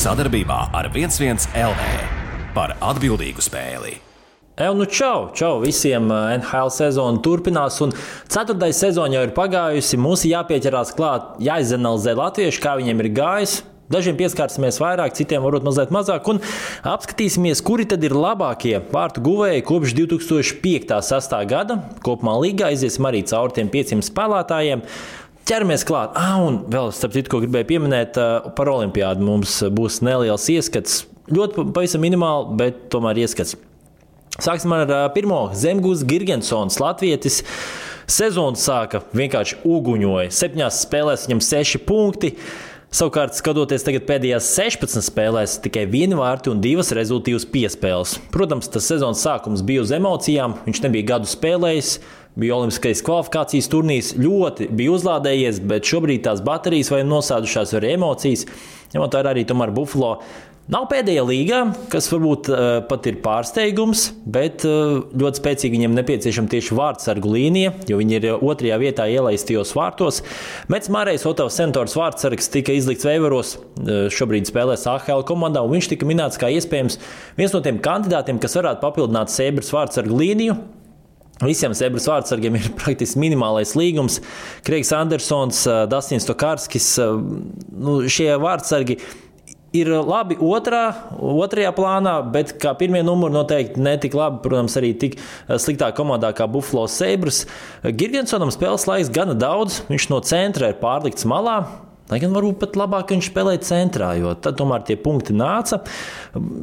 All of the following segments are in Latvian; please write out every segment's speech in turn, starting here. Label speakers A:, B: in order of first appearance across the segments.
A: Sadarbībā ar 11 LV par atbildīgu spēli.
B: Čau visiem! NHL sezona turpinās, un 4. sezona jau ir pagājusi. Mums jāpieķerās klāt, jāizanalizē latvieši, kā viņiem ir gājis. Dažiem pieskārsimies vairāk, citiem varbūt mazliet mazāk, un apskatīsimies, kuri tad ir labākie vārtu guvēji kopš 2005.–2006. gada. Kopumā līgā iziesim arī cauri tiem 500 spēlētājiem. Ķeramies klāt. Un vēl, starp citu, ko gribēju pieminēt, par olimpiādu mums būs neliels ieskats. Ļoti pavisam minimāli, bet tomēr ieskats. Sāksim ar pirmo. Zemgūs Girgensons, latvietis. Sezonu sāka vienkārši uguņoja. 7 spēlēs viņam 6 punkti. Savukārt, skatoties tagad pēdējās 16 spēlēs, tikai 1 vārti un 2 rezultīvas piespēles. Protams, tas sezonas sākums bija uz emocijām, viņš nebija gadu spēlējis, bija olimpiskais kvalifikācijas turnīrs, ļoti bija uzlādējies, bet šobrīd tās baterijas vai nosēdušās arī emocijas, ņemot vērā arī tomēr Buffalo. Nav pēdējā līgā, kas varbūt pat ir pārsteigums, bet ļoti spēcīgi viņiem nepieciešama tieši vārtsargu līnija, jo viņi ir 2. vietā ielaistajos vārtos. Mets Mārējs, Otavas Senators vārtsargs, tika izlikts veivaros, šobrīd spēlēs AHL komandā, un viņš tika minēts kā iespējams viens no tiem kandidātiem, kas varētu papildināt Sabres vārtsargu līniju. Visiem Sabres vārtsargiem ir praktiski minimālais līgums. Kreigs Andersons, Dastins Tokarskis, šie vārtsargi ir labi otrajā plānā, bet kā pirmie numuri noteikti netik labi, protams, arī tik sliktā komandā kā Buffalo Sabres. Girgensonam spēles laiks gana daudz, viņš no centra ir pārlikts malā, lai gan varbūt pat labāk viņš spēlē centrā, jo tad tomēr tie punkti nāca.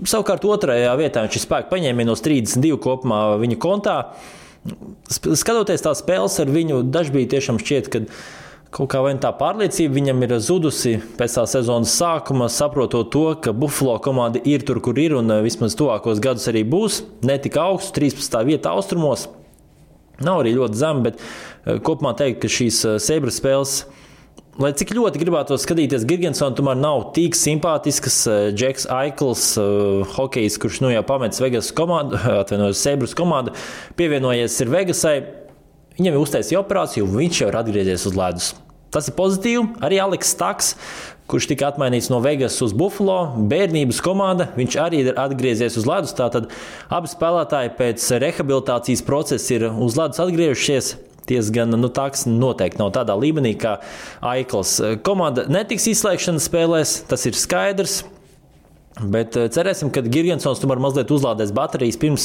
B: Savukārt 2. vietā viņš ir spēku paņēmienos 32 kopumā viņa kontā. Skatoties tās spēles ar viņu, dažbrīd tiešām šķiet, ka kaut kā vai tā pārliecība viņam ir zudusi pēc tā sezonas sākuma, saprotot to, ka Buffalo komanda ir tur, kur ir, un vismaz tuvākos gadus arī būs. Ne tik augsts, 13. vieta austrumos. Nav arī ļoti zem, bet kopumā teikt, ka šīs Sabres spēles, lai cik ļoti gribētos skatīties Girgensonu, tomēr nav tik simpātiskas. Džeks Aikls, hokejs, kurš jau pamets Vegas komandu, Sabres komandu, pievienojies ir Vegasai. Viņam ir uztaisīja operāciju, un viņš jau ir atgriezies uz ledus. Tas ir pozitīvi. Arī Aleks Staks, kurš tika atmainīts no Vegas uz Buffalo, bērnības komanda, viņš arī ir atgriezies uz ledus. Tātad abi spēlētāji pēc rehabilitācijas procesa ir uz ledus atgriežušies. Gan Taks noteikti nav tādā līmenī kā Aikls. Komanda netiks izslēgšanas spēlēs, tas ir skaidrs. Bet cerēsim, ka Girgensons tomēr mazliet uzlādēs baterijas pirms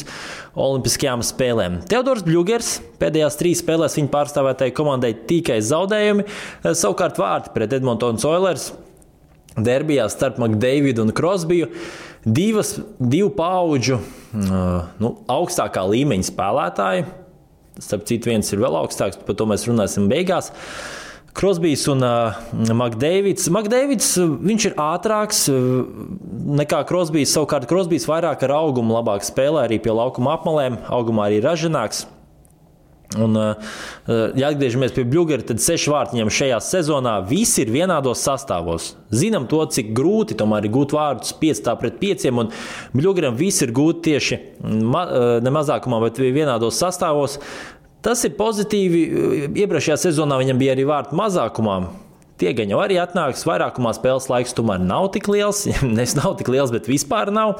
B: olimpiskajām spēlēm. Teodors Bļugers pēdējās 3 spēlēs viņa pārstāvētāji komandai tikai zaudējumi. Savukārt vārti pret Edmontonas Oilers derbijā starp McDavidu un Crosbiju. 2 paudžu augstākā līmeņa spēlētāji. Starp citu, viens ir vēl augstāks, par to mēs runāsim beigās. Crosbijs un McDavids. McDavids, viņš ir ātrāks nekā Crosbijs. Savukārt Crosbijs vairāk ar augumu labāk spēlē, arī pie laukuma apmalēm. Augumā arī ražanāks. Un, ja atgriežamies pie Bļugera, tad 6 vārti viņam šajā sezonā. Visi ir vienādos sastāvos. Zinām to, cik grūti tomēr ir gūt vārdus 5-5, un Bļugeram visi ir gūti tieši ne mazākumā, bet vienādos sastāvos. Tas ir pozitīvi. Iepriekšējā sezonā viņam bija arī vārtu mazākumā. Tie gan jau arī atnāks. Vairākumā spēles laiks tomēr nav tik liels. Nes nav tik liels, bet vispār nav.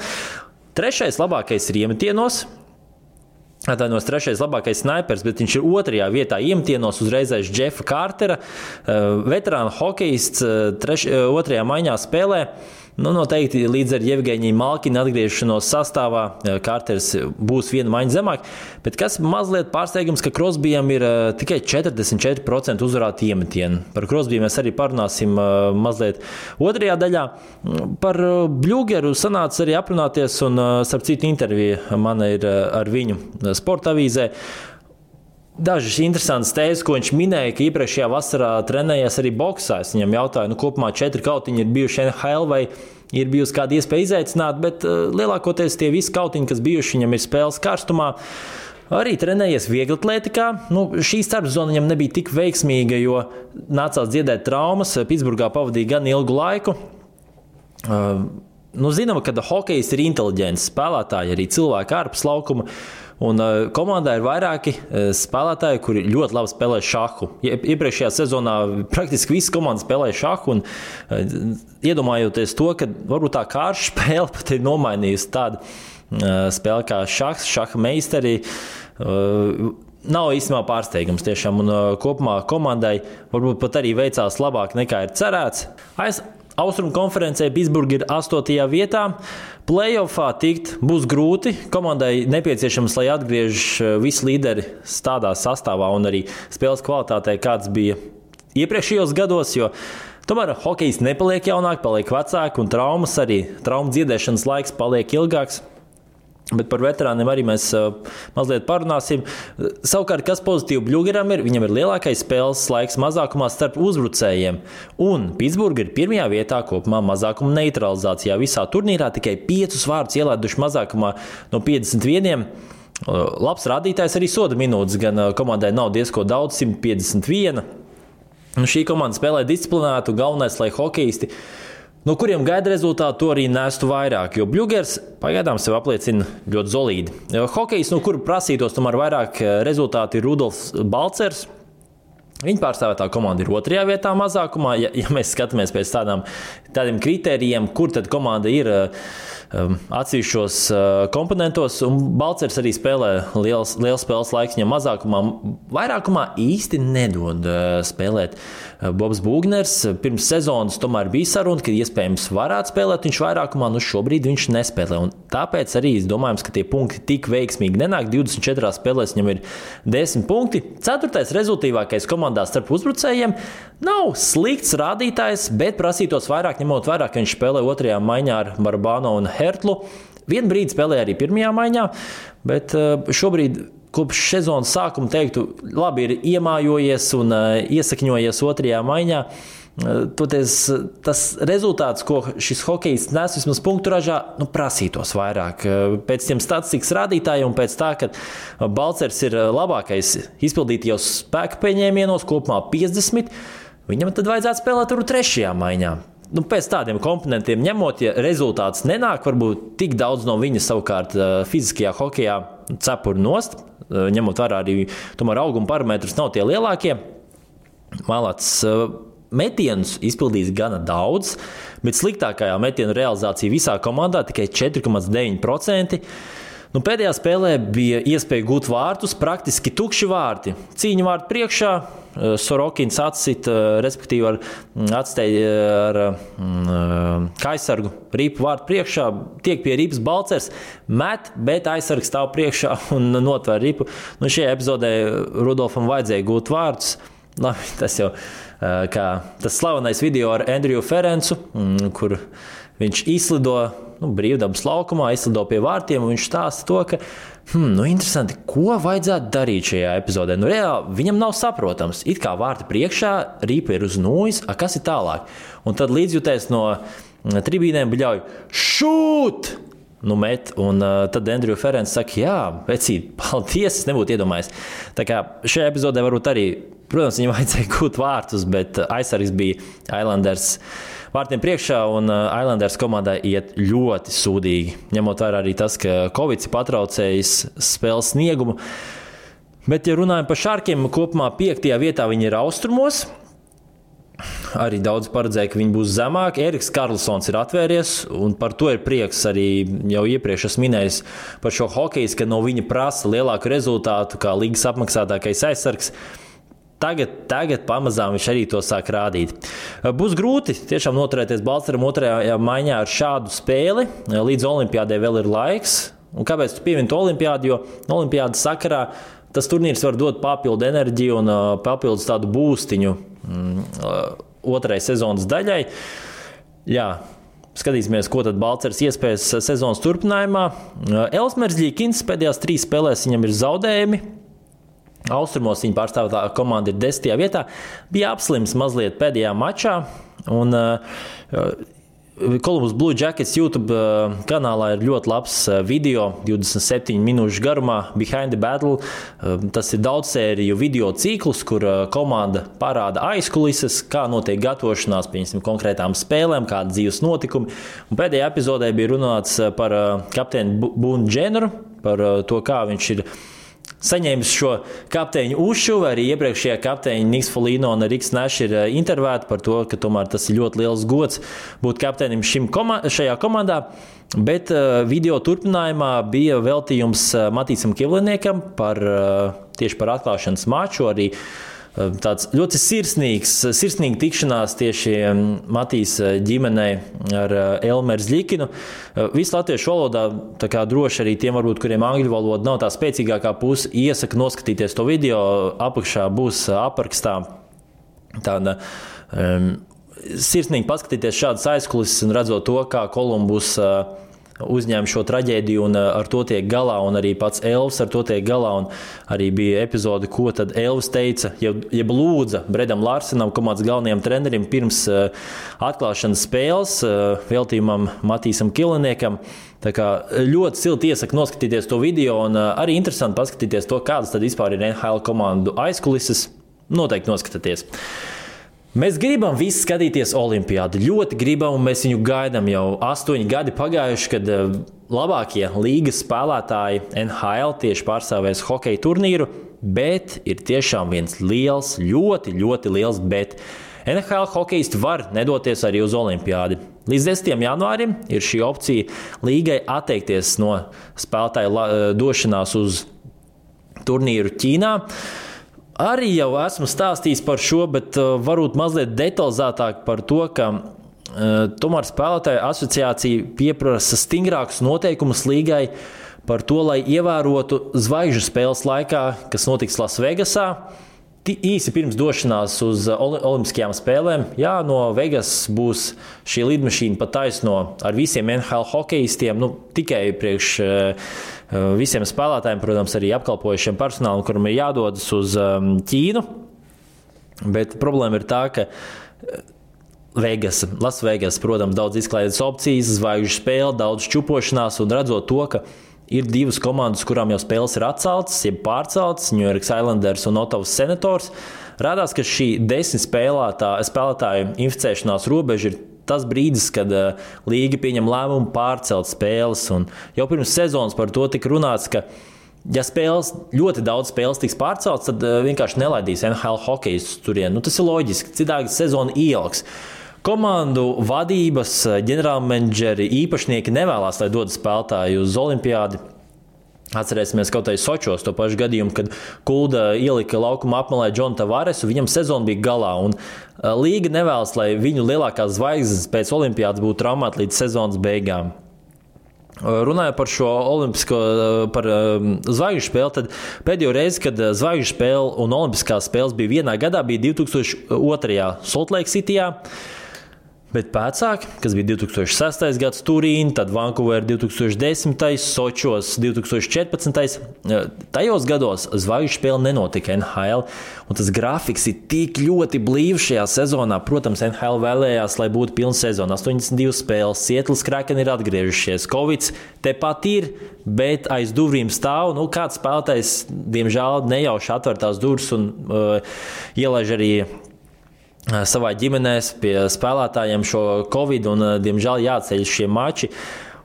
B: 3. labākais ir iemetienos. Atvainojos, 3. labākais snaipers, bet viņš ir 2. vietā iemetienos uzreiz aiz Jeffa Kārtera. Veterāna hokejists 2. maiņā spēlē. Noteikti līdz ar Jevgeņiju Malkinu atgriešanos sastāvā Kārters būs 1 maiņa zemāk, bet kas mazliet pārsteigums, ka Crosbyjam ir tikai 44% uzvarāti iemetieni. Par Crosbyju mēs arī parunāsim mazliet 2. daļā. Par Bļugeru sanāca arī aprunāties, un starp citu intervija mana ir ar viņu Sporta avīzē. Dažas interesantas tēzes, ko viņš minēja, ka iepriekšējā vasarā trenējies arī boksā. Es viņam jautāju, kopumā 4 kautiņi ir bijuši NHL vai ir bijusi kāda iespēja izaicināt, bet lielākoties tie visi kautiņi, kas bijuši, viņam ir spēles karstumā. Arī trenējies vieglatlētikā. Šī starpzona viņam nebija tik veiksmīga, jo nācās dziedēt traumas. Pitsburgā pavadīja gan ilgu laiku. Zinām, ka hokejs ir inteliģents spēlētāji, arī cilvēki ārpus laukuma. Un komandā ir vairāki spēlētāji, kuri ļoti labi spēlē šahu. Iepriekšējā sezonā praktiski visi komandas spēlēja šahu. Iedomājoties to, ka varbūt tā kārša spēle pat ir nomainījusi tādu spēli kā šahs, šaha meistari. Nav īstenībā pārsteigums tiešām. Un kopumā komandai varbūt pat arī veicās labāk nekā ir cerēts. Austrumu konferencē Pittsburgha ir 8. vietā. Playoffā tikt būs grūti. Komandai nepieciešams, lai atgriež visi līderi tādā sastāvā un arī spēles kvalitātē, kāds bija iepriekšējos gados, jo tomēr hokejs nepaliek jaunāk, paliek vecāk un traumu dziedēšanas laiks paliek ilgāks. Bet par veterāniem arī mēs mazliet parunāsim. Savukārt, kas pozitīvi Bļugeram ir, viņam ir lielākais spēles laiks mazākumā starp uzbrucējiem. Un Pittsburgha ir 1. vietā kopumā mazākuma neutralizācijā. Visā turnīrā tikai 5 vārdus ielaiduši mazākumā no 51. Labs rādītājs arī soda minūtes, gan komandai nav diezko daudz, 151. Šī komanda spēlē disciplinētu, galvenais, lai hokejisti, no kuriem gaida rezultātu, to arī nestu vairāk, jo Bļugers pagaidām sev apliecina ļoti solīdi. Hokejs, no kura prasītos tomēr vairāk rezultāti, ir Rudolfs Balcers. Viņa pārstāvētā komanda ir 2. vietā mazākumā. Ja mēs skatāmies pēc tādiem kritērijiem, kur tad komanda ir atsevišķos komponentos, un Balcers arī spēlē liels spēles laiks, viņam mazākumā, vairākumā īsti nedod spēlēt. Bobs Būgners pirms sezonas tomēr bija saruna, ka iespējams varētu spēlēt viņš vairākumā, šobrīd viņš nespēlē. Un tāpēc arī es domāju, ka tie punkti tik veiksmīgi nenāk. 24 spēlēs viņam ir 10 punkti. 4. rezultīvākais komandā starp uzbrucējiem nav slikts rādītājs, bet prasītos vairāk, ņemot vērā, ka viņš spēlē 2. maiņā ar Barbāno un Hertlu. Vienu brīdi spēlēja arī 1. maiņā, bet šobrīd kopš sezonas sākuma teiktu, labi ir iemājojies un iesakņojies 2. maiņā. Toties tas rezultāts, ko šis hokejs nes vismaz punktu ražā, prasītos vairāk. Pēc tiem statistikas rādītājiem un pēc tā, ka Balcers ir labākais izpildītajos spēka pieņēmienos, kopumā 50, viņam tad vajadzētu spēlēt tur 3. maiņā. Pēc tādiem komponentiem ņemot, ja rezultāts nenāk, varbūt tik daudz no viņa savukārt fiziskajā hokejā cepur nost, ņemot vērā arī tomēr auguma parametrus nav tie lielākie. Malats metienus izpildījis gana daudz, bet sliktākajā metienu realizācija visā komandā tikai 4,9%. Pēdējā spēlē bija iespēja gūt vārtus, praktiski tukši vārti. Cīņa vārtu priekšā, Sorokins atsit, respektīvi atstēja ar aizsargu ripu vārtu priekšā, tiek pie ripas Balcers, met, bet aizsargs stāv priekšā un notver ripu. Šajā epizodē Rudolfam vajadzēja gūt vārtus. Tas jau kā tas slavenais video ar Andriju Ferencu, kur viņš izlido brīvdabas laukumā, izlido pie vārtiem, un viņš stāsta to, ka interesanti, ko vajadzētu darīt šajā epizodē. Reāli viņam nav saprotams. It kā vārti priekšā, ripa ir uz nūjas, kas ir tālāk? Un tad līdzjutēs no tribīnēm bļauj šūt! Met, un tad Andriju Ferents saka, jā, vecīt, paldies, es nebūtu iedomājies. Tā kā šajā epizodē varbūt arī, protams, viņam vajadzēja gūt vārtus, bet aizsargs bija Islanders vārtiem priekšā, un Islanders komandai iet ļoti sūdīgi. Ņemot vērā arī tas, ka Covid ir patraucējis spēles sniegumu. Bet, ja runājam par Šarkiem, kopumā 5. vietā viņi ir austrumos. Arī daudz paredzēja, ka viņi būs zemāk. Eriks Karlsons ir atvēries, un par to ir prieks. Arī jau iepriekš esmu minējis par šo hokeju, ka no viņa prasa lielāku rezultātu kā līgas apmaksātākais aizsargs. Tagad pamazām viņš arī to sāk rādīt. Būs grūti tiešām noturēties Balceram 2. maiņā ar šādu spēli. Līdz olimpiādē vēl ir laiks. Un kāpēc tu piemini to olimpiādu? Jo olimpiādas sakarā tas turnīrs var dot papildu enerģiju un papildus tādu būstiņu 2. sezonas daļai. Jā, skatīsimies, ko tad Balcers iespējas sezonas turpinājumā. Elsmers Ļikins pēdējās 3 spēlēs viņam ir zaudējumi. Austrumos viņa pārstāvētā komanda ir 10. vietā. Bija apslims mazliet pēdējā mačā. Un Columbus Blue Jackets YouTube kanālā ir ļoti labs video, 27 minūšu garumā, Behind the Battle. Tas ir daudzsēriju video ciklus, kur komanda parāda aizkulises, kā notiek gatavošanās pie konkrētām spēlēm, kādi dzīves notikumi. Un pēdējā epizodē bija runāts par kapteini Boone Jenneru, par to, kā viņš ir saņēmis šo kapteiņu uzšuvu. Arī iepriekšējā kapteiņa Niks Folino un Riks Nash ir intervēti par to, ka tomēr tas ir ļoti liels gods būt kapteinim šajā komandā. Bet video turpinājumā bija veltījums Matīsam Kivliniekam tieši par atklāšanas maču. Arī tāds ļoti sirsnīga tikšanās tieši Matīs ģimenei ar Elmeru Zļikinu. Visu latviešu valodā, tā kā droši arī tiem, varbūt, kuriem angļu valoda nav tā spēcīgākā puse, iesaku noskatīties to video. Apakšā būs aprakstā tāda sirsnīgi paskatīties šādas aizkulises un redzot to, kā Columbus uzņēma šo traģēdiju un ar to tiek galā, un arī pats Elvis ar to tiek galā. Un arī bija epizode, ko tad Elvis teica, jeb lūdza Bredam Larsenam, komandas galvenajam trenerim, pirms atklāšanas spēles veltījumam Matīsam Kivliniekam. Tā kā ļoti silti iesaku noskatīties to video, un arī interesanti paskatīties to, kādas tad vispār ir NHL komandu aizkulises. Noteikti noskatieties. Mēs gribam visi skatīties Olimpiādu. Ļoti gribam, un mēs viņu gaidām jau 8 gadi pagājuši, kad labākie līgas spēlētāji NHL tieši pārstāvēs hokeja turnīru, bet ir tiešām viens liels, ļoti, ļoti liels bet. NHL hokeisti var nedoties arī uz Olimpiādi. Līdz 10. janvārim ir šī opcija līgai atteikties no spēlētāju došanās uz turnīru Ķīnā. Arī jau esmu stāstījis par šo, bet varbūt mazliet detalizētāk par to, ka tomēr spēlētāju asociācija pieprasa stingrākus noteikumus līgai par to, lai ievērotu zvaigžņu spēles laikā, kas notiks Lasvegasā. Īsi pirms došanās uz Olimpiskajām spēlēm, no Vegas būs šī lidmašīna pa taisno ar visiem NHL hokeistiem, tikai priekš visiem spēlētājiem, protams, arī apkalpojušiem personālam, kuram ir jādodas uz Ķīnu. Bet problēma ir tā, ka Lasvegas, protams, daudz izklaides opcijas, zvaigžņu spēle, daudz čupošanās, un redzot to, ka ir 2 komandas, kurām jau spēles ir atceltas, jeb pārceltas, New York Islanders un Ottawas Senators. Rādās, ka šī 10 spēlētāju inficēšanās robeža ir tas brīdis, kad līga pieņem lēmumu pārcelt spēles. Un jau pirms sezonas par to tika runāts, ka ja ļoti daudz spēles tiks pārceltas, tad vienkārši nelaidīs NHL hokejistus turien. Tas ir loģiski, citādi sezona ieliks. Komandu vadības, ģenerālmenedžeri, īpašnieki nevēlas, lai dodas spēlētāji uz Olimpiādi. Atcerēsimies kaut vai Sočos to pašu gadījumu, kad Kulda ielika laukuma apmalē Džonu Tavaresu, viņam sezona bija galā. Un līga nevēlas, lai viņu lielākās zvaigznes pēc Olimpiādas būtu traumēti līdz sezonas beigām. Runājot par šo olimpisko, par zvaigžņu spēli, tad pēdējo reizi, kad zvaigžņu spēle un olimpiskās spēles bija vienā gadā, bija 2002. Salt Lake Cityjā. Bet pēcāk, kas bija 2006. gads Turīna, tad Vancouver 2010. Sočos 2014. Tajos gados zvaigžņu spēle nenotika NHL, un tas grafiks ir tik ļoti blīvs šajā sezonā. Protams, NHL vēlējās, lai būtu pilna sezona, 82 spēles, Seattles Kraken ir atgriežušies, Covids tepat ir, bet aiz durvīm stāv, kāds spēlētājs, diemžēl, nejauši atver tās durvis un ielaiž arī savā ģimenēs pie spēlētājiem šo Covid, un, diemžēl, jāceļ šie mači.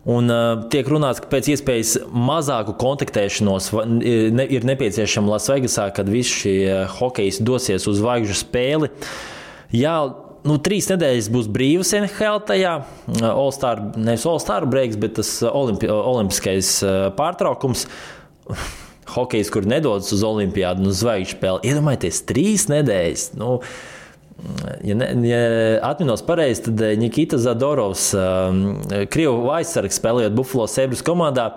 B: Un tiek runāts, ka pēc iespējas mazāku kontaktēšanos ir nepieciešama Lasvegasā, kad visi šie hokejisti dosies uz zvaigžņu spēli. 3 nedēļas būs brīvas NHL tajā, nevis All-Star breaks, bet tas olimpiskais pārtraukums. Hokejs, kur nedodas uz Olimpiādu un uz zvaigžņu spēli. Iedomājieties, 3 nedēļas. Ja atminos pareizi, tad Nikita Zadorovs, Krievu aizsargs, spēlējot Buffalo Sabres komandā,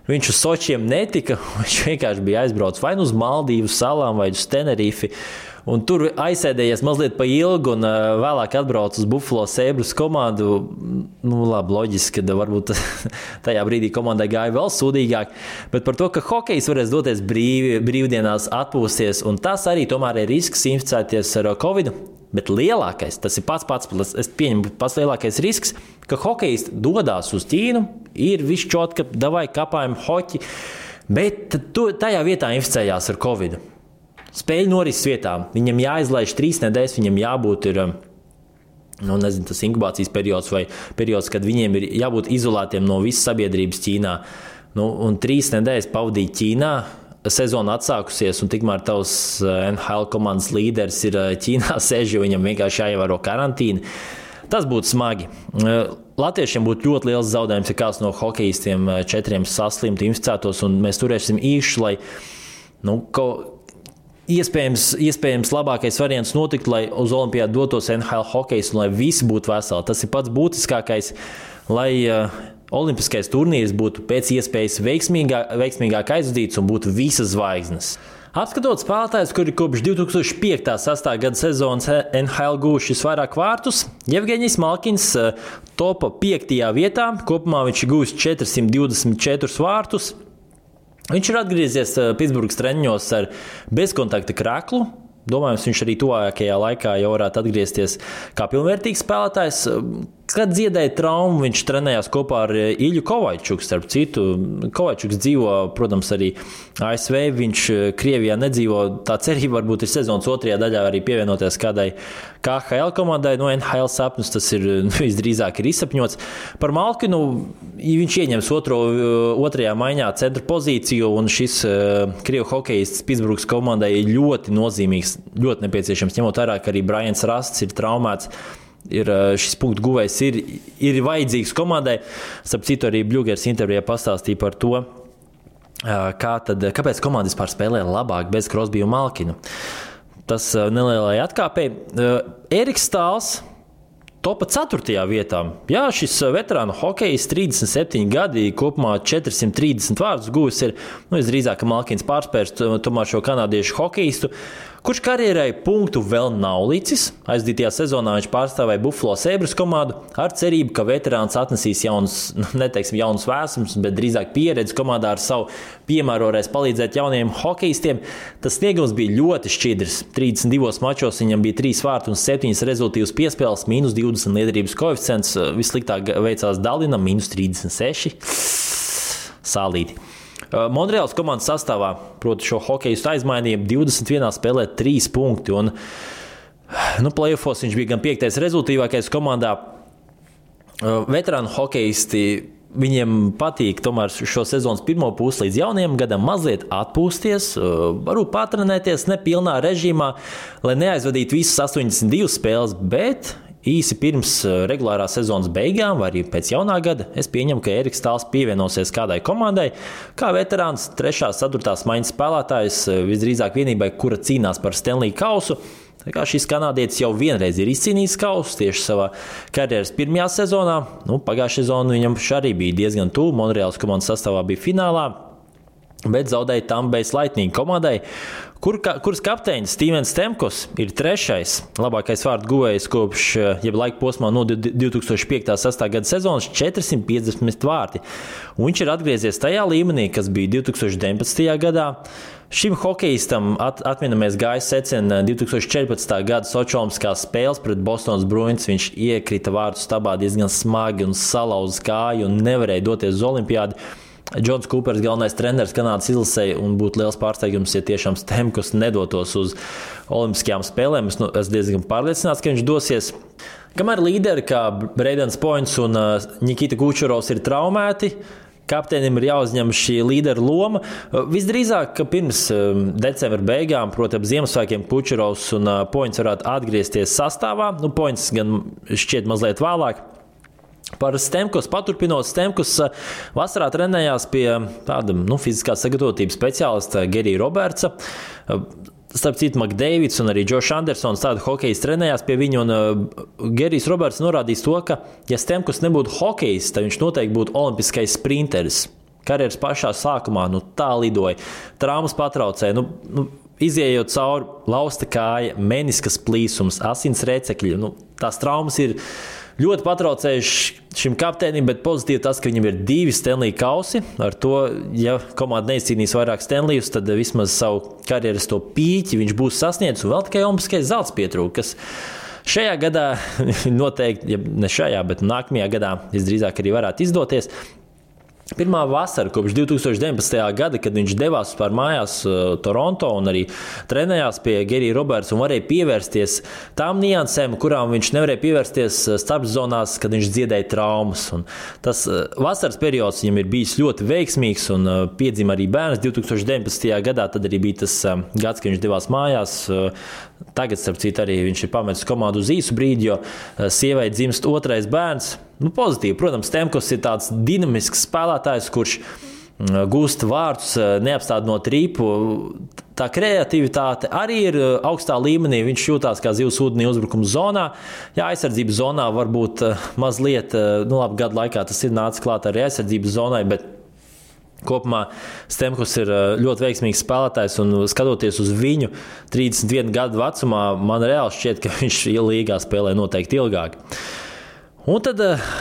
B: viņš uz Sočiem netika. Viņš vienkārši bija aizbraucis vai uz Maldīvu salām vai uz Tenerifi. Un tur aizsēdējies mazliet pa ilgu, un vēlāk atbrauc uz Buffalo Sabres komandu. Labi, loģiski, ka varbūt tajā brīdī komandai gāja vēl sūdīgāk. Bet par to, ka hokejs varēs doties brīvdienās atpūsties, un tas arī tomēr ir risks inficēties ar Covid. Bet lielākais, tas ir es pieņemu pats lielākais risks, ka hokejisti dodās uz Ķīnu, ir viss čot, ka davai kapājam hoķi, bet tajā vietā inficējās ar Covid. Spēļu norises vietā. Viņam jāizlaiž 3 nedēļas, viņam jābūt tas inkubācijas periods vai periods, kad viņiem ir jābūt izolētiem no visas sabiedrības Ķīnā. Un 3 nedēļas pavadīt Ķīnā, sezona atsākusies, un tikmēr tavs NHL komandas līderis ir Ķīnā sēž, jo viņam vienkārši jāievēro karantīna. Tas būtu smagi. Latviešiem būtu ļoti liels zaudējums, ja kāds no hokejistiem 4 saslimtu, inficētos, un mēs turēsim īši, lai iespējams labākais variants notiktu, lai uz olimpiādu dotos NHL hokejs un lai visi būtu veseli. Tas ir pats būtiskākais, lai olimpiskais turnīrs būtu pēc iespējas veiksmīgāk aizvadīts un būtu visas zvaigznes. Apskatot spēlētājus, kuri kopš 2005.-6. gada sezonas NHL guvuši visvairāk vārtus, Jevgeņijs Malkins topa 5. vietā, kopumā viņš ir guvis 424 vārtus. Viņš ir atgriezies Pitsburgas treniņos ar bezkontakta kreklu. Domājams, viņš arī tuvākajā laikā jau varētu atgriezties kā pilnvērtīgs spēlētājs. Kad dziedēja traumu, viņš trenējās kopā ar Iļu Kovaičuku. Starp citu, Kovaičuks dzīvo, protams, arī ASV. Viņš Krievijā nedzīvo. Tā cerība varbūt ir sezonas 2. daļā arī pievienoties kādai KHL komandai. No NHL sapņus tas ir visdrīzāk ir izsapņots. Par Malkinu viņš ieņems 2. maiņā centra pozīciju, un šis Krievu hokejists Pitsburgas komandai ir ļoti nozīmīgs, ļoti nepieciešams, ņemot vērā, ka arī Brians Rasts ir traumēts. Šis punktu guvējs ir vajadzīgs komandai. Starp citu, arī Bļugers intervijā pastāstīja par to, kāpēc komanda vispār spēlē labāk bez Crosby un Malkinu. Tas nelielai atkāpēji. Eriks Stāls topa 4. vietā. Jā, šis veterānu hokejs 37 gadi, kopumā 430 vārdus guvis ir, visdrīzāk, ka Malkins pārspērs tomēr šo kanādiešu hokejistu, kurš karjerai punktu vēl nav licis. Aizdītajā sezonā viņš pārstāvēja Buffalo Sabres komandu ar cerību, ka veterāns atnesīs jaunus vēsums, bet drīzāk pieredzi komandā ar savu piemēru varēs palīdzēt jauniem hokejistiem. Tas sniegums bija ļoti šķidrs. 32 mačos viņam bija 3 vārti un 7 rezultīvas piespēles, -20 liederības koeficients. Vissliktāk veicās Dalinam, -36. Sālīti. Montreāls komandas sastāvā, proti šo hokejistu aizmainīja 21 spēlē 3 punkti. Un, playoffos viņš bija gan 5. rezultīvākais komandā. Veterānu hokejisti, viņiem patīk tomēr šo sezonas pirmo pusi līdz jaunajam gadam mazliet atpūsties, varbūt patrenēties nepilnā režīmā, lai neaizvadītu visas 82 spēles, bet īsi pirms regulārā sezonas beigām vai arī pēc jaunā gada es pieņemu, ka Eriks Stāls pievienosies kādai komandai, kā veterāns 3. 4. maiņas spēlētājs, visdrīzāk vienībai, kura cīnās par Stanley kausu. Tā kā šis kanādietis jau vienreiz ir izcīnījis kausu tieši savā karjeras pirmajā sezonā. Pagājušā sezona viņam arī bija diezgan tuvu. Montreāls komandas sastāvā bija finālā, bet zaudēja Tampa Bay Lightning komandai, kuras kapteinis Stevens Stamkos ir 3. labākais vārdu guvējs kopš laika posmā no 2005.-6. gada sezonas 450 vārti. Un viņš ir atgriezies tajā līmenī, kas bija 2019. gadā. Šim hokejistam atminamies gāja secena 2014. gada Sočolimskās spēles pret Bostonas Bruins. Viņš iekrita vārtu stabā diezgan smagi un salauza kāju un nevarēja doties uz olimpiādu. Džons Kūpers, galvenais treneris Kanādas izlasē, un būtu liels pārsteigums, ja tiešām Stamkos nedotos uz olimpiskajām spēlēm. Es diezgan pārliecināts, ka viņš dosies. Kamēr līderi kā Braidens Points un Nikita Kučerovs ir traumēti, kapteinim ir jāuzņem šī līdera loma. Visdrīzāk, ka pirms decembra beigām, proti ap Ziemassvētkiem, Kučerovs un Points varētu atgriezties sastāvā. Points gan šķiet mazliet vēlāk. Par Stamkos paturpinot, Stamkos vasarā trenējās pie tāda fiziskās sagatavotības speciālista Gerija Robertsa. Starp citu, McDavids un arī Josh Andersons tādu hokejs trenējās pie viņa, un Gerijs Roberts norādījis to, ka, ja Stamkos nebūtu hokejs, tad viņš noteikti būtu olimpiskais sprinteris. Karjeras pašā sākumā tā lidoja, traumas patraucēja, izējot cauri lausta kāja, meniskas plīsums, asins rēcekļi. Tās traumas ir ļoti patraucējuši šim kapteinim, bet pozitīvi tas, ka viņam ir 2 Stanley kausi. Ar to, ja komanda neizcīnīs vairāk Stanleyus, tad vismaz savu karjeras to pīķi viņš būs sasniedzis, un vēl tikai olimpiskais zelts pietrūka, kas Šajā gadā noteikti, ja ne šajā, bet nākamajā gadā visdrīzāk arī varētu izdoties. Pirmā vasara kopš 2019. gada, kad viņš devās vispār mājās Toronto un arī trenējās pie Gerija Roberts un varēja pievērsties tām niansēm, kurām viņš nevarēja pievērsties starpzonās, kad viņš dziedēja traumas. Un tas vasaras periods viņam ir bijis ļoti veiksmīgs un piedzima arī bērns 2019. gadā. Tad arī bija tas gads, kad viņš devās mājās. Tagad, starp citu, arī viņš ir pametis komandu uz īsu brīdi, jo sievai dzimst otrais bērns. Pozitīvi, protams, Stamkos ir tāds dinamisks spēlētājs, kurš gūst vārdus, neapstādinot rīpu. Tā kreativitāte arī ir augstā līmenī. Viņš jūtās kā zivs ūdenī uzbrukuma zonā. Jā, aizsardzības zonā varbūt mazliet, gadu laikā tas ir nācis klāt arī aizsardzības zonai, bet kopumā Stamkos ir ļoti veiksmīgs spēlētājs, un skatoties uz viņu 31 gadu vecumā, man reāli šķiet, ka viņš līgā spēlē noteikti ilgāk. Un tad,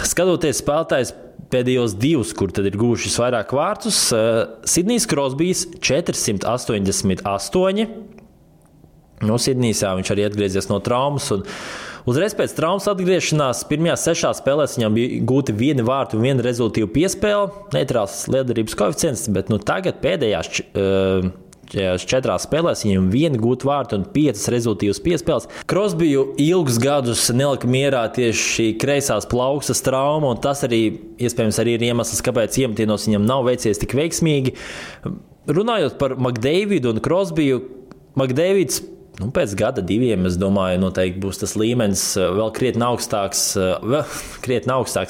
B: skatoties spēlētājs pēdējos divus, kur tad ir guvuši vairāk vārtus, Sidnijs Krosbijs 488. Sidnijs viņš arī atgriezies no traumas. Un uzreiz pēc traumas atgriešanās pirmajās 6 spēlēs viņam bija gūti 1 vārtu un 1 rezultīvu piespēle. Neitrāls liederības koeficients, bet tagad pēdējās 4 spēlēs viņam 1 gūta vārtu un 5 rezultīvas piespēles. Krosbiju ilgus gadus nelika mierā tieši šī kreisās plaukstas trauma, un tas arī iespējams arī ir iemesls, kāpēc iemetienos viņam nav veicies tik veiksmīgi. Runājot par McDavidu un Krosbiju, McDavids pēc gada 2, es domāju, noteikti būs tas līmenis vēl krietni augstāks.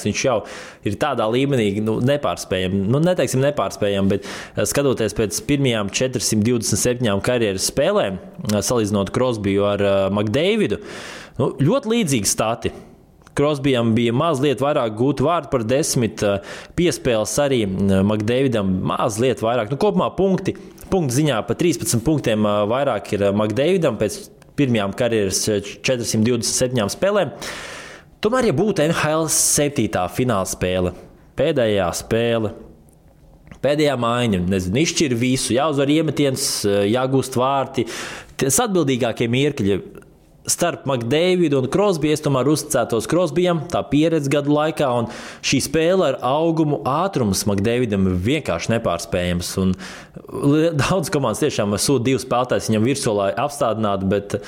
B: Viņš jau ir tādā līmenī nepārspējami. Neteiksim nepārspējami, bet skatoties pēc pirmajām 427 karjeras spēlēm, salīdzinot Krosbiju ar McDavidu, ļoti līdzīgi stati. Krosbijam bija mazliet vairāk gūtu vārdu par 10 piespēles, arī McDavidam mazliet vairāk. Kopumā punktu ziņā pa 13 punktiem vairāk ir McDavidam pēc pirmajām karjeras 427 spēlēm. Tomēr, ja būtu NHL 7. fināla spēle, pēdējā spēle, pēdējā maiņa, izšķir visu, jāuzvar iemetiens, jāgūst vārti, tas atbildīgākie mirkļi starp McDavidu un Krosbiju, es tomēr uzticētos Krosbijam, tā pieredze gadu laikā, un šī spēle ar augumu ātrums McDavidam ir vienkārši nepārspējams. Un daudz komandas tiešām sūta 2 spēlētājus viņam virsū, lai apstādinātu, bet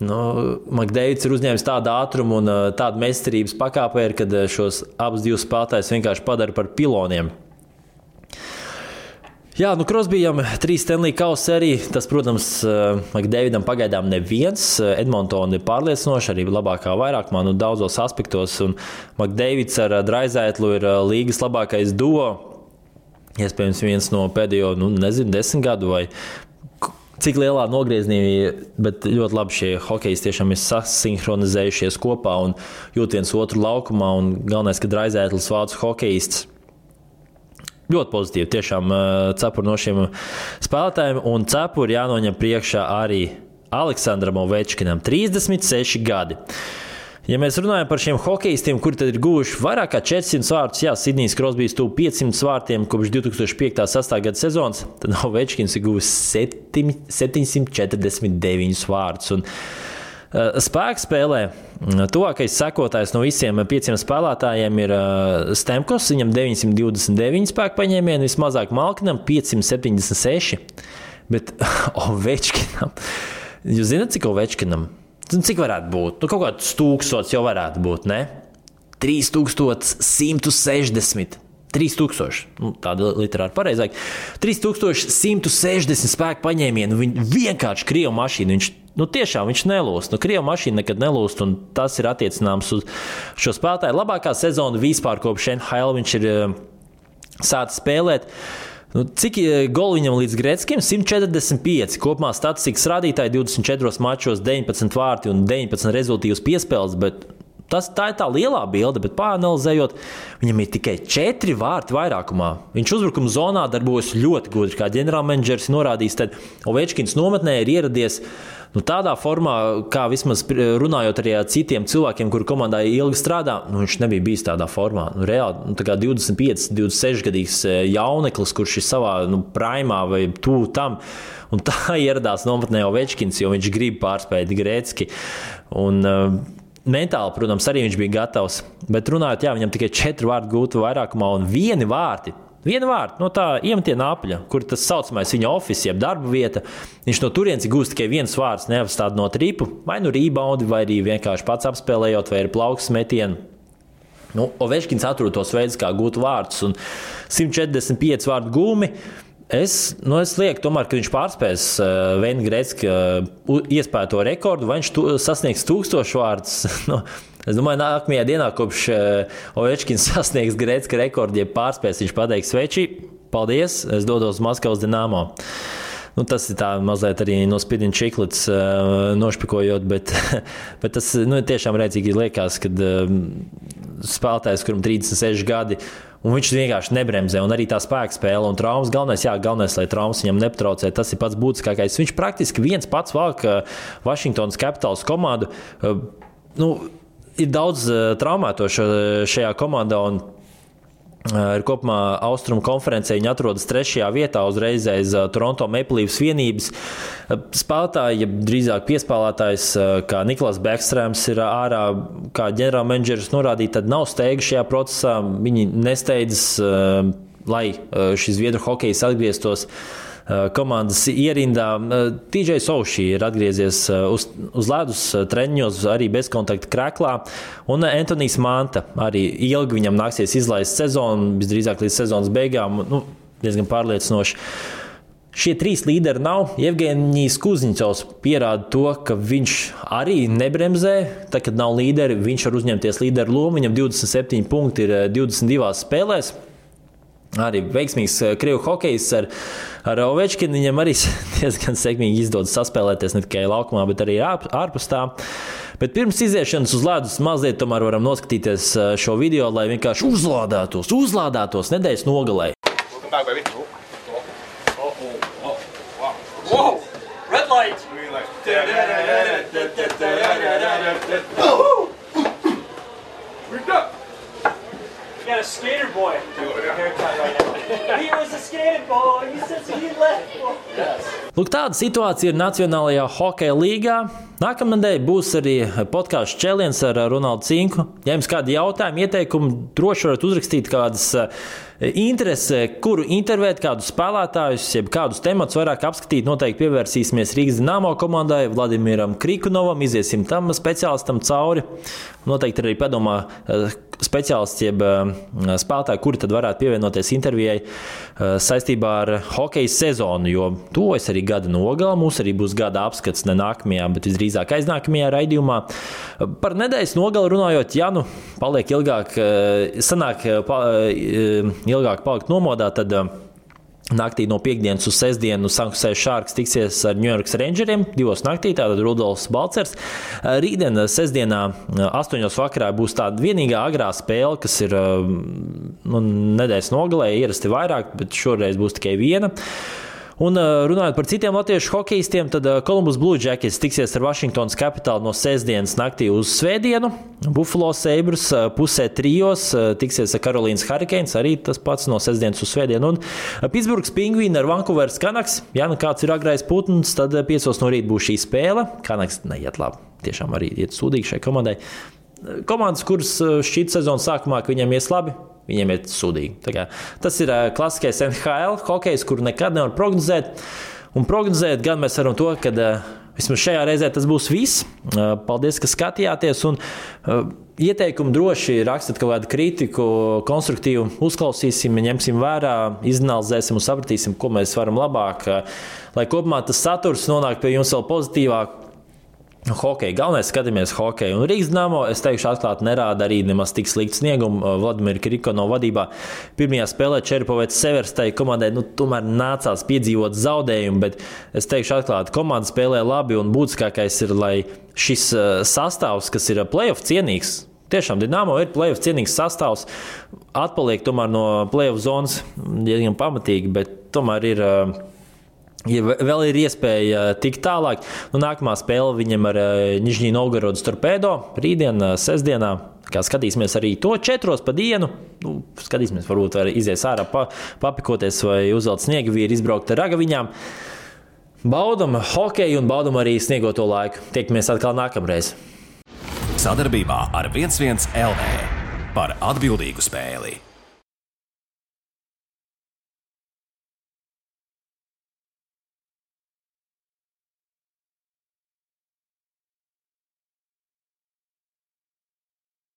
B: McDavids ir uzņēmis tādu ātrumu un tādu meistarības pakāpēju, kad šos abus 2 spēlētājus vienkārši padara par piloniem. Jā, Krosbijam 3 Stanley Kausi arī. Tas, protams, McDavidam pagaidām neviens. Edmontona ir pārliecinoši, arī labākā vairākumā, daudzos aspektos. Un McDavids ar Draisaitlu ir līgas labākais duo. Iespējams, viens no pēdējo, 10 gadu vai cik lielā nogriezienī, bet ļoti labi šie hokejisti tiešām ir sasinhronizējušies kopā un jūt viens otru laukumā. Un galvenais, ka Draisaitls vācu hokejists. Ļoti pozitīvi, tiešām cepuri no šiem spēlētājiem, un cepuri jānoņem priekšā arī Aleksandram Ovečkinam, 36 gadi. Ja mēs runājam par šiem hokejistiem, kuri tad ir guvuši vairāk kā 400 vārtus, Sidnijs Krosbijs tuvu 500 vārtiem kopš 2005.-2006. gada sezonas, tad Ovečkins ir guvis 749 vārtus. Un spēka spēlē tuvākais sekotājs no visiem 5 spēlētājiem ir Stamkos. Viņam 929 spēka paņēmieni, vismazāk Malkinam 576. Bet Ovečkinam, jūs zināt, cik Ovečkinam? Cik varētu būt? Kaut kāds 1000 jau varētu būt, ne? 3160. 3000, tāda literāri pareizāk. 3160 spēku paņēmienu. Viņi vienkārši krievu mašīnu. Viņš nelūst. Krievu mašīna nekad nelūst, un tas ir attiecināms uz šo spēlētāju. Labākā sezona vispār kopš NHL viņš ir sācis spēlēt. Cik goli viņam līdz Gretzkim? 145. Kopumā statistikas rādītāji 24 mačos, 19 vārti un 19 rezultīvas piespēles, bet tā ir tā lielā bilde, bet pāranalizējot, viņam ir tikai 4 vārti vairākumā. Viņš uzbrukuma zonā darbojas ļoti gudri, kā ģenerālmenedžers norādījis, tad Ovečkins nometnē ir ieradies tādā formā, kā vismaz runājot arī ar citiem cilvēkiem, kuri komandā ilgi strādā, viņš nebija bijis tādā formā. Reāli, tā kā 25, 26 gadīgs jauneklis, kurš ir savā primā vai tuvu tam, un tā ieradās nometnē Ovečkins, jo viņš grib pārspēt Gretzki. Un mentāli, protams, arī viņš bija gatavs. Bet runājot, viņam tikai 4 vārdi gūti vairākumā un 1 vārdi. Viena vārda no tā iemetiena apļa, kur tas saucamais viņa office, jeb darba vieta. Viņš no turienes gūst tikai 1 vārds, neapstādinot ripu, vai rebound, vai arī vienkārši pats apspēlējot, vai ir plaukstas metienu. Ovečkins atrod tos veidus, kā gūt vārdus, un 145 vārdu gūmi. Es lieku tomēr, ka viņš pārspēs Veina Gretzka iespēto rekordu, vai viņš sasniegs 1000 vārdus. Es domāju, nākamajā dienā, kopš Ovečkins sasniegs Gretzka rekordu, ja pārspēs, viņš pateiks: Sveči, paldies, es dodos Maskavas Dinamo. Tas ir tā mazliet arī no spidina čiklets nošpikojot, bet tas tiešām redzīgi liekas, kad spēlētājs, kuram 36 gadi, un viņš vienkārši nebremzē, un arī tā spēka spēle un traumas. Galvenais, lai traumas viņam nepatraucē, tas ir pats būtiskākais. Viņš praktiski viens pats valk Washingtonas Capitals komandu. Ir daudz traumēto šajā komandā, un ir kopumā Austrumu konferencē viņi atrodas 3. vietā uzreiz aiz Toronto Maple Leafs vienības. Spēlētāji, ja drīzāk piespēlētājs, kā Niklas Bekstrēms ir ārā, kā ģenerālmenedžeris norādīja, tad nav steiga šajā procesā. Viņi nesteidzas, lai šis zviedru hokejs atgrieztos komandas ierindā. TJ Oshie ir atgriezies uz ledus treniņos, arī bezkontakta krēklā, un Antonijs Manta arī ilgi viņam nāksies izlaist sezonu, visdrīzāk līdz sezonas beigām, diezgan pārliecinoši. Šie 3 līderi nav. Jevgenijs Kuzņicovs pierāda to, ka viņš arī nebremzē. Tad, kad nav līderi, viņš var uzņemties līderu lomu. Viņam 27 punkti ir 22 spēlēs. Arī veiksmīgs krievu hokejs ar Ovečkinu. Viņam arī diezgan sekmīgi izdodas saspēlēties ne tikai laukumā, bet arī ārpus tā. Bet pirms iziešanas uz ledus mazliet tomēr varam noskatīties šo video, lai vienkārši uzlādētos nedēļas nogalē.
C: Whoa! Red light! You got a skater boy haircut right now. He was a skater boy. He says he left. Yes.
B: Lūk, tāda situācija ir Nacionālajā hokeja līgā. Nākamnedēļ būs arī podkāsts Čēliens ar Ronaldu Cinku. Ja jums kādi jautājumi, ieteikumi, droši varat uzrakstīt kādas interesi, kuru intervēt, kādus spēlētājus, jeb kādus tematus vairāk apskatīt. Noteikti pievērsīsimies Rīgas Dinamo komandai, Vladimiram Krikunovam, iziesim tam speciālistam cauri. Noteikti arī padomā speciālists, jeb spēlētāji, kuri tad varētu pievienoties intervijai saistībā ar hokeja sezonu, jo tuvojas arī gada nogala. Mums arī būs gada apskats ne nākamajā, bet visdrīzāk aiznākamajā raidījumā. Par nedēļas nogali runājot, ja paliek ilgāk, sanāk ilgāk palikt nomodā, tad naktī no piekdienas uz sestdienu San Jose Sharks tiksies ar New York Rangeriem 2 naktī, tātad Rudolfs Balcers. Rītdien sestdienā 8 vakarā būs tāda vienīgā agrā spēle, kas ir nedēļas nogalē, ierasti vairāk, bet šoreiz būs tikai viena. Un runājot par citiem latviešu hokejistiem, tad Columbus Blue Jackets tiksies ar Washingtonas Capital no sestdienas naktī uz svētdienu. Buffalo Sabres pusē 3 tiksies ar Carolīnas Hurricanes, arī tas pats no sestdienas uz svētdienu. Un Pittsburghs Penguini ar Vancouveras Canucks. Ja kāds ir agrais putns, tad 5 no rīta būs šī spēle. Canucks neiet labi, tiešām arī iet sūdīgi šai komandai. Komandas, kuras šķiet sezonas sākumā, ka viņiem ies labi, viņiem ir sūdīgi. Tas ir klasiskais NHL hokejs, kuru nekad nevar prognozēt. Un prognozēt gan mēs varam to, ka vismaz šajā reizē tas būs viss. Paldies, ka skatījāties. Un ieteikumu droši rakstat kaut kādu kritiku, konstruktīvu uzklausīsim, ņemsim vērā, izanalizēsim un sapratīsim, ko mēs varam labāk, lai kopumā tas saturs nonāk pie jums vēl pozitīvāk. Hokeja. Galvenais skatāmies hokeju. Un Rīgas Dinamo, es teikšu atklāt, nerāda arī nemaz tik sliktu sniegumu. Vladimira Krikunovā vadībā pirmajā spēlē Čeripovets Severstai komandai tomēr nācās piedzīvot zaudējumu, bet es teikšu atklāt, komanda spēlē labi un būtiskākais ir, lai šis sastāvs, kas ir playoff cienīgs, tiešām Dinamo ir playoff cienīgs sastāvs, atpaliek tomēr no playoff zonas diezgan pamatīgi, bet tomēr ir... Ja vēl ir iespēja tikt tālāk, nākamā spēle viņam ar Nižņī Novgorodas Torpedo rītdien, sestdienā. Kā skatīsimies arī to 4 pa dienu. Skatīsimies, varbūt var izies ārā papikoties vai uzvelt sniegavīri, izbraukt ar ragaviņām. Baudam hokeju un baudam arī sniegoto laiku. Tiekamies atkal nākamreiz.
A: sadarbībā ar 11 LV par atbildīgu spēli.